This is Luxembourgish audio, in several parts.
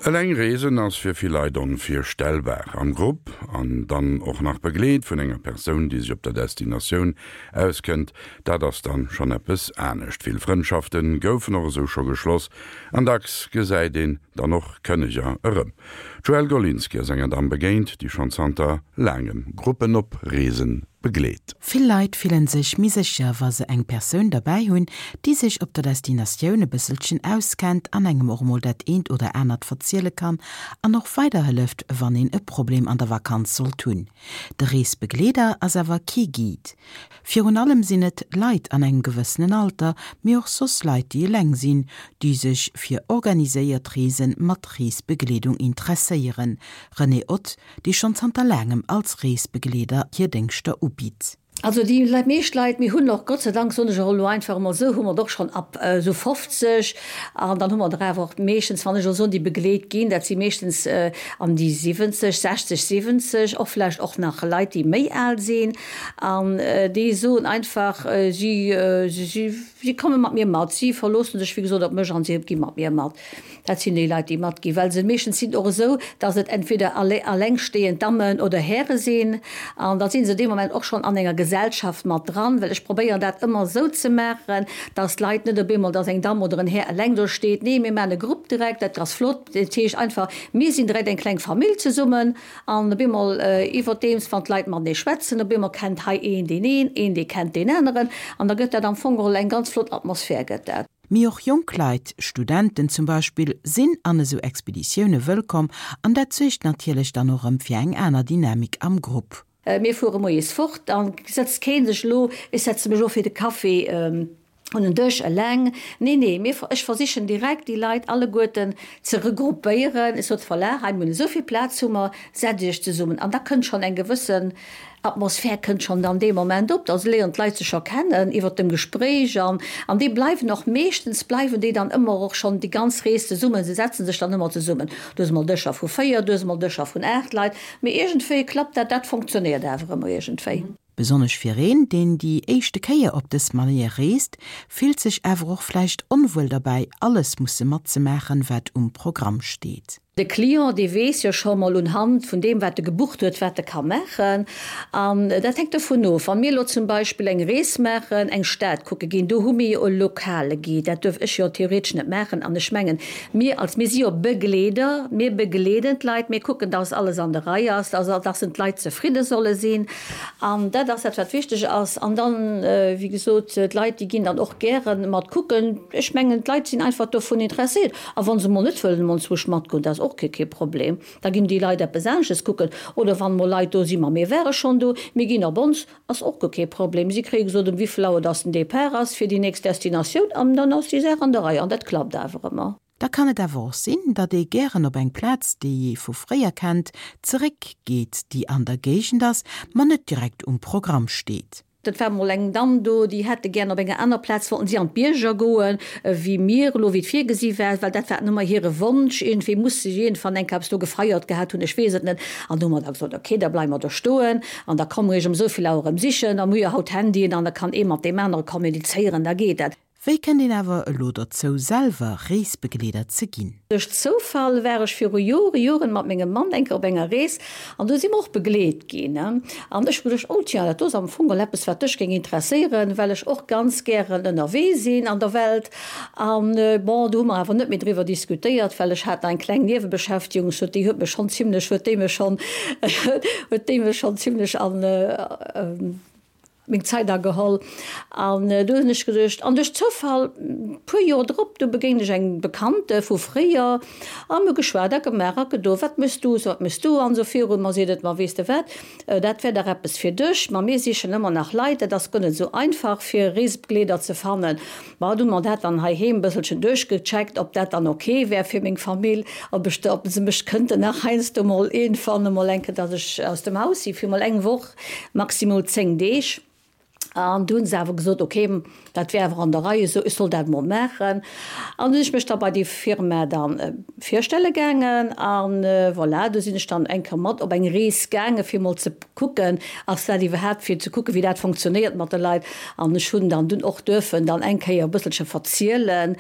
Eleng reesen ass fir vill Leit onvirstellbar. Am Grupp, an dann och nach begleet vun enger Persoun, déi sech op der Destinatioun auskënnt, dat ass dann schonn eppes anescht. Vill Frëndschafte goufen och esou scho geschloss an dacks gesäit een dann och Kënneger erëm. D'Joëlle Golinski ass enger Damm begéint, déi schonn zanter laangem Gruppen op Reesen begleet. Vill Leit fillen sech méi sécher, wa se eng Persoun derbäi hunn, déi sech op der Destinatioun e bësselchen auskennt an engem och mol dat eent oder anert verziele kann an och weiderhëlleft, wann een e Problem an der Vakanz sollt hunn. De Reesbegleeder ass awer kee Guide. Virun allem sinn et Leit an engem gewëssenen Alter, mee och soss Leit, déi eleng sinn, déi sech fir organiséiert Reese mat Reesbegleedung interesséieren. Renée Ott, déi schonn zanter laangem als Reesbegleeder hir Déngschter ubitt. Also déi meescht Leit, mir hunn och Gott sei Dank, soen ech och elo einfach emol esou, hu mer et och schonn ab esou 50 an dann hu mer der awer och meeschtens, wann ech elo soen, déi begleet ginn, dat si meeschtens an déi 70, 60, 70, och vläicht och nach Leit, déi méi al sinn an déi soen einfach, si, si, si komme mat mir mat, si verloosse sech wéi gesot op mech an si gi mat mir mat. Dat sinn déi Leit, déi matginn, well se meeschtens sinn och esou, dass et entweder allengstehend Dammen oder Häre sinn an da si se dee Moment och schonn an enger Gesellschaft mat dran, well ech probéieren dat ëmmer esou ze maachen, dass d'Leit net op eemol, dass eng Damm oder en Här eleng do steet. Nee, mir maachen e Grupp direkt, dat ass flott. Dat heescht einfach, mir sinn direkt eng kleng Famill zesummen an op eemol iwwerdeems, wann d'Leit matenee schwätzen, op eemol kennt hei een deen een, een dee kennt deen aneren an da gëtt dat am Fong geholl eng ganz flott Atmosphär gëtt dat. Mee och jonk Leit, Studenten zum Beispill, sinn an esou Expeditioune wëllkomm an dat suergt natierlech dann och erëm fir eng aner Dynamik am Grupp. Mir fuere moies fort, da sëtzt kee sech elo, ech setze mech elo fir de Café un en Dësch eleng. Nee, nee, mir, ech versichen direkt déi Leit alleguerten ze regroupéieren. Ech sot, voilà, hei mir hunn esou vill Plaz hu mer, setzt iech zesummen. An da kënnt schonn eng gewëssen Atmosphär kënnt schonn dann dee Moment op, da léieren d'Leit sech scho kennen iwwert dem Gespréich an an déi bleiwen och meeschtens bleiwen déi dann ëmmer och schonn déi ganz Rees zesummen. Se setzen sech dann ëmmer zesummen. Du hues emol Dëscher vu 4, du hues emol Dëscher vun 8 Leit, mee iergendwéi klappt dat, dat funktionéiert awer ëmmer iergendwéi. Besonnesch fir een, deen déi éischte Kéier op dës Manéier reest, fillt sech awer och vläicht onwuel derbäi, alles musse matzemaachen, wat um Programm steet. De Client, dee weess jo scho mol un Hand vun deem, wat e gebucht huet, wat e ka maachen. An dat hänkt dovun of, wa mir elo zum Beispill eng Rees maachen, eng Stad kucke ginn, do hu mir jo e lokale Guide. Dat duerf ech jo theoretesch net maachen. An ech mengen, mir als, mir si jo Begleeder, mir begleeden d'Leit, mir kucken, dass alles an der Rei ass, dass, dass d'Leit zefridde solle sinn. An dat ass dat, wat wichteg ass. An dann, wéi gesot, d'Leit, déi ginn dann och gäre mat kucken. Ech mengen, d'Leit sinn einfach dovun interesséiert. A wa se mol net wëllen emol zwousch matgoen, dat ass och kee kee Problem, da ginn déi Leit eppes anesches kucken. Oder wann mol Leit do sinn, ma mir ware schonn do, mir ginn op ons, ass och guer kee Problem. Si kréie gesot, ëm wéivill Auer dass den Départ ass fir déi nächst Destinatioun an dann ass déi Saach an der Rei an dat klappt awer ëmmer. Da kann et awer och sinn, datt ee gären op eng Plaz, déi ee vu fréier kennt, zeréck geet, déi an der Géigend ass, ma net direkt um Programm steet. Et war mol eng Damm do, déi hätte gären op enger aner Plaz, wollten si an d'Bierger goen, wéi mir elo, wéi et virgesi war, well dat war ëmmer hire Wonsch. Iergendwéi muss se iergendwann eng Kéier eppes do gefeiert gehat hunn, ech weess et net. An du hu mer da gesot, ok, da bleiwe mer do stoen an da komme mer iech ëm esou vill Auer erëm sichen. A mir hu jo haut Handyen an da kann ee mat deem anere kommunizéieren, da geet dat. Wéi kënnt een awer elo dozou selwer Reesbegleeder ze ginn? Duerch Zoufall war ech viru Jore Joren mat mengem Mann eng Kéier op enger Rees an do si mer och begleet ginn. An ech hu geduecht, oh tiens, dat do ass am Fong geholl eppes wat dech géing interesséieren, well ech och ganz gären ënnerwee sinn an der Welt. An bon, do hu mer awer net méi driwwer diskutéiert, well ech hat nach eng kleng Niewebeschäftigung, sot déi huet mech schonn zimlech, huet déi mech schonn, huet déi mech schonn zimlech an, meng Zait ageholl an du hunn ech geduecht, an duerch Zoufall puer Joer drop, du begéint ech eng Bekannte vu fréier a mir hu geschwat a gemaach a gedo, wat méchs du, wat méchs du an esou virun. Ma seet et, ma weess de wat, dat wär dach eppes fir dech, ma mir sichen ëmmer nach Leit, dat ass guer net esou einfach fir Reesbegleeder ze fannen. Ma du hu mer dat dann heiheem e bësselchen duerchgecheckt, ob dat dann ok wär fir meng Famill, ob ech, ob se mech kënnten nach heiansdo mol iergendwann emol eng Kéier, datt ech aus dem Haus si fir mol eng Woch. Maximol 10 Deeg. An du hunn se awer gesot, ok, dat wär awer an der Rei esou, ech soll dat emol maachen. An du sinn ech mech da bei déi Firma da virstelle gaangen a voilà, du sinn ech dann eng Kéier mat op eng Rees gaange fir emol ze kucken, ass dat iwwerhaapt, fir ze kucken, wéi dat fonctionnéiert mat de Leit. An ech hunn dann dunn och duerfen dann eng Kéier e bësselche verzielen.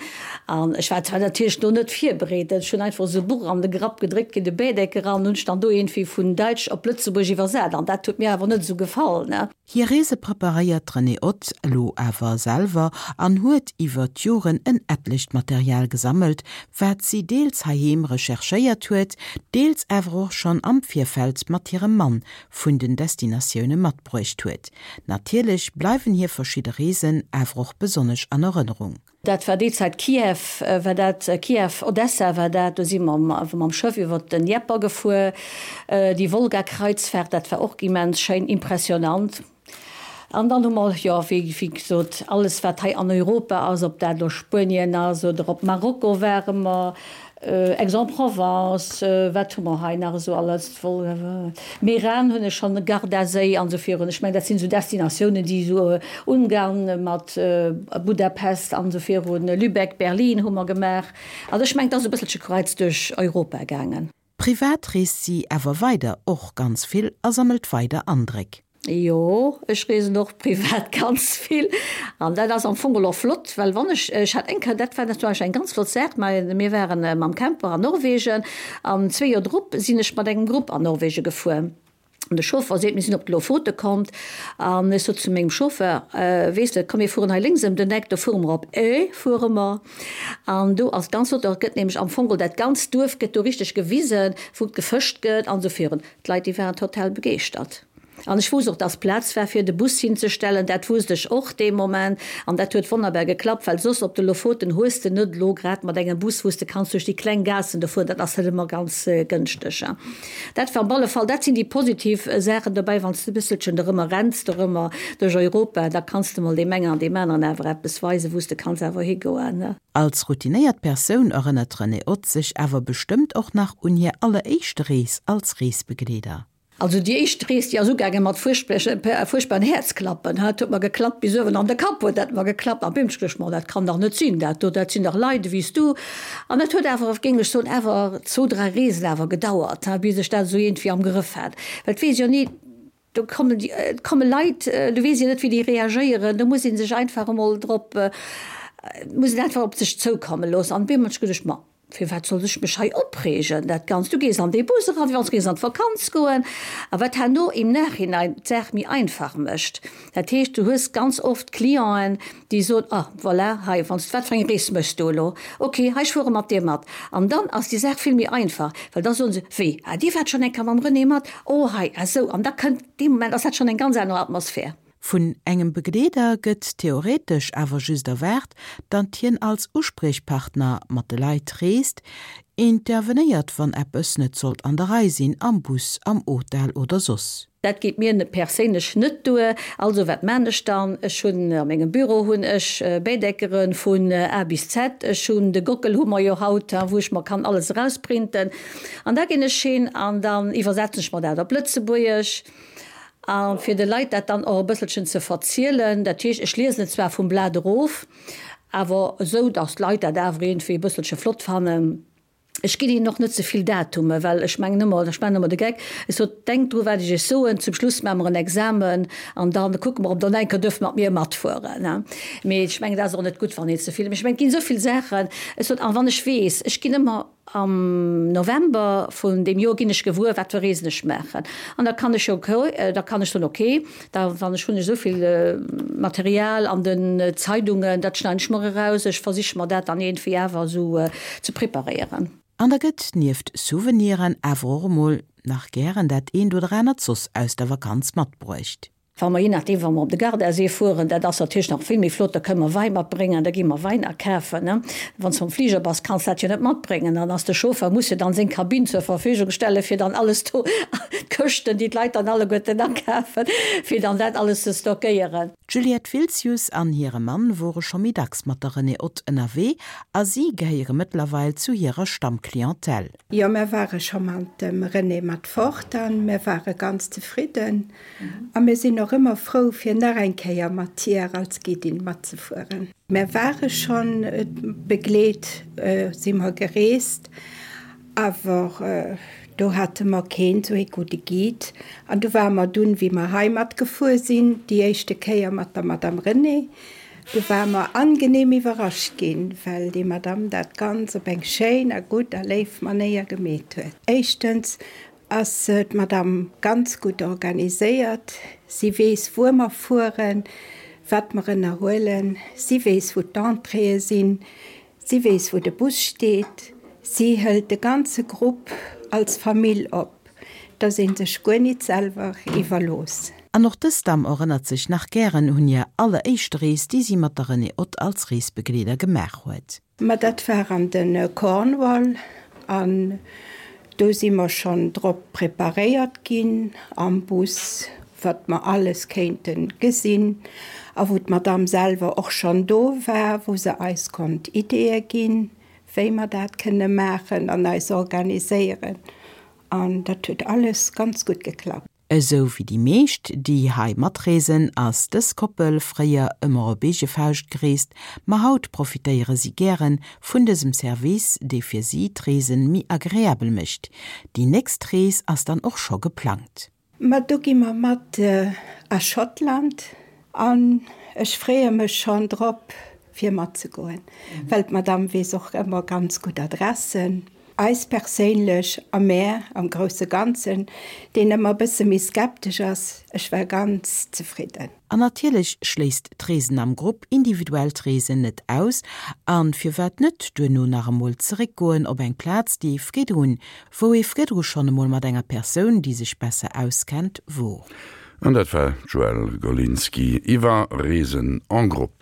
An ech war zwar natierlech do net virbereet, ech hunn einfach esou e Buch an de Grapp gedréckt kritt, e Bädecker, an hunn ech dann do iergendwéi vun Däitsch op Lëtzebuerg iwwersat an dat huet mir awer net esou gefall. Hir Reese preparéiert d'Renée Ott elo awer selwer an huet iwwer d'Joren en etlecht Material gesammelt, wat si deels heiheem recherchéiert huet, deels awer och schonn am Virfeld mat hirem Mann vun den Destinatioune matbruecht huet. Natierlech bleiwen hir verschidde Reesen awer och besonnesch an Erënnerung. Dat war déi Zäit, Kiew war dat, Kiew, Odessa war dat, do si mer mam Schëff iwwer den Dnieper gefuer, déi Wolga-Kreuzfahrt, dat war och immens schéin, impressionant. An dann hu mer, jo, wéi gesot, alles wat hei an Europa ass, ob dat elo Spuenien ass oder op Marokko ware mer, Aix-en-Provence, wat hu mer hei nach esou alles, Meran hunn ech schonn, Gardaséi an esou virun. Ech mengen, dat sinn esou Destinatiounen, déi esou Ungarn mat Budapest an esou virun, Lübeck, Berlin hu mer gemaach. Also ech mengen, et ass e bësselche kreuz duerch Europa gaangen. Privat reest si awer weider och ganz vill a sammelt weider Andréck. Jo, ech reesen och privat ganz vill an dat ass am Fong och flott, well wann ech, ech hat eng Kéier, dat war natierlech eng ganz flott Saach, mä mir waren mam Camper an Norwegen an zwee Joer drop sinn ech mat engem Grupp an Norwegen gefuer an de Chauffer seet, mir sinn op d'Lofote kommt an ech sot zu mengem Chauffeur, weess de, komm mir fueren hei lénks ëm den Eck, do fuere mer op Ö fuere mer an do ass ganz flott, do gëtt nämlech am Fong dat ganzt Duerf gëtt do richteg gewisen, wou gefëscht gëtt an esou virun. D'Leit déi waren total begeeschtert. An ech wousst och, dass Plaz war fir de Bus hinzestellen, dat wousst ech och dee Moment. An dat huet wonnerbar geklappt, well soss op de Lofoten hues de net elo grad mat engem Bus, wou s de kanns duerch déi kleng Gaassen do fueren, dat ass net ëmmer ganz gënschteg. Dat war op alle Fall, dat sinn déi positiv Saachen dobäi, wann s de e bësselchen dorëmmer renns, dorëmmer duerch Europa, da kanns de mol deem engen an deem aneren awer eppes weisen, wou s de kanns awer higoen. Als routinéiert Persoun erënnert d'Renée Ott sech awer bestëmmt och nach un hir alleréischte Rees als Reesbegleeder. Also déi éischt Rees, déi ass ugaange mat fuerchtbaren Häerzklappen. Et huet mer geklappt bis uewen an de Kapp huet dat mer geklappt. An bim, ech geduecht, ma dat kann dach net sinn, dat do, dat sinn dach Leit ewéi s du. An dat huet awer, géing ech soen, awer zwou, dräi Reesen awer gedauert, bis ech dat esou iergendwéi am Grëff hat. Well et weess jo ni, do kommen déi, et komme Leit, du weess jo net, wéi déi reagéieren. Do muss ee sech einfach emol drop, muss een einfach op sech zoukomme loossen. An bim, ech geduecht, ma Firwat sollt ech mech hei opreegen, dat Ganzt? Du gees an dee Bus eran, wéi wann s du géings an d'Vakanz goen. A wat herno im Nachhinein d'Saach méi einfach mécht, dat heescht, du hues ganz oft Clienten, déi soen, Ah, voilà, hei, wann s, wat fir eng Rees méchs du elo? Ok, hei, ech fuere mat dir mat. An dann ass déi Saach vill méi einfach, well da soen se, Wéi, ah, dir waart schonn eng Kéier mam René mat? Oh, hei, ah sou. An da kënnt, dee Moment ass dat schonn eng ganz aner Atmosphär. Vun engem Begleeder gëtt theoretesch awer just erwaart, datt hien als Uspriechpartner mat de Leit reest, intervenéiert wann eppes net sollt an der Rei sinn, am Bus, am Hotel oder soss. Dat geet mir perséinlech net duer. Also wat maan ech dann? Ech hunn a mengem Büro hunn ech Bähdeckere vun A bis Z. Ech hunn de Gockel hu mer jo haut, wou ech mer kann alles erausprinten. An da ginn ech hin an dann iwwersetzen ech mer dat op Lëtzebuergesch. A fir de Leit dat dann och e bësselchen ze verzielen, dat heescht, ech liesen et zwar vum Blat erof, awer esou, datt d'Leit dat awer iergendwéi e bësselche flott fannen. Ech ginn hinnen och net ze vill Datume, well ech mengen ëmmer, ech maachen ëmmer de Geck, ech sot, Denkt dru wat ech iech soen, zum Schluss maache mer en Examen an da kucke mer, ob der eng Kéier duerft mat mir matfueren. Mee ech mengen, dat ass och net gutt, wann een ze vill, mee ech mengen, et ginn esou vill Saachen, ech sot, a wann ech weess, ech ginn ëmmer, Am November vun deem Joer ginn ech gewuer, wat fir Reesen ech maachen. An da kann ech jo, da kann ech soen, okay, da wann ech hunn ech esou vill Material an den Zeidungen, dat schneiden ech mer eraus, ech versiche mer dat dann iergendwéi awer esou ze preparéieren. An da gëtt nieft Souveniren awer och emol nach gären dat eent oder anert soss aus der Vakanz matbruecht. Wa mer, je nachdeem, wa mer op de Gardasee fueren, dat ass natierlech nach vill méi flott, da kënne mer Wäi matbréngen, da gi mer Wäin akafen, ne. Wann s de mam Fliger bass, kanns dat jo net matbréngen. Dann ass de Chauffeur, muss jo dann seng Kabinn zur Verfügung stellen, fir dann alles do, d'Këschten, déi d'Leit dann alleguerten akafen, fir dann dat alles ze stockéieren. D'Juliette Wiltzius an hire Mann wore scho méi dacks mat der Renée Ott ënnerwee a si gehéiere mëttlerweil zu hirer Stammclientèle. Jo, mär ware scho mat dem Renée mat fort an mär ware ganz zefridden. A mir sinn och. och ëmmer frou fir nach eng Kéier mat hir als Guidin matzefueren. Mär ware schonn begleet, si mer gereest, awer do hate mer keen esou ee gudde Guide. An du ware mer dunn, wéi mer hei matgefuer sinn, déi éischte Kéier mat der Madame Renée, du ware mer angenehm iwwerrascht ginn, well déi Madame dat ganz op eng schéin a gutt a léif Manéier gemeet huet. Éischtens ass d'Madame ganz gutt organiséiert. Si weess, wuer mer fueren, wat mer ënnerhuelen. Si weess, wou d'Entréeë sinn. Si weess, wou de Bus steet. Si hëlt de ganze Grupp als Famill op, dass ee sech guer nit selwer iwwerlooss. An och dës Damm erënnert sech nach gären un hir alleréischte Rees, déi si mat der Renée Ott als Reesbegleeder gemaach huet. Ma dat war an de Cornwall an do si mer schonn drop preparéiert ginn am Bus, wat mer alles kéinte gesinn a wou d'Madame selwer och schonn do war, wou se eis konnt Ideeë ginn, wéi mer dat kënne maachen an eis organiséieren. An dat huet alles ganz gutt geklappt. Esou wéi déi meescht, déi hei matreesen, ass dës Koppel fréier ëmmer op eege Fauscht gereest, ma haut profitéiere si gären vun dësem Service, dee fir si d'Reesen méi agreabel mécht. Déi nächst Rees ass dann och scho geplangt. Ma do gi mer mat a Schottland an ech freeë mech schonn drop fir matzegoen, well d'Madame weess och ëmmer ganz gutt Adressen. Eis perséinlech a mär am grousse Ganzen, deen ëmmer e bësse méi skeptesch ass, ech war ganz zefridden. An natierlech schléisst d'Reesen am Grupp individuellt Reesen net aus. An firwat net duerno nach emol zeréckgoen op eng Plaz, déi ee vridrun, wou ee vridru schonn emol mat enger Persoun, déi sech besser auskennt, wor. An dat war d'Joëlle Golinski iwwer Reesen en groupe.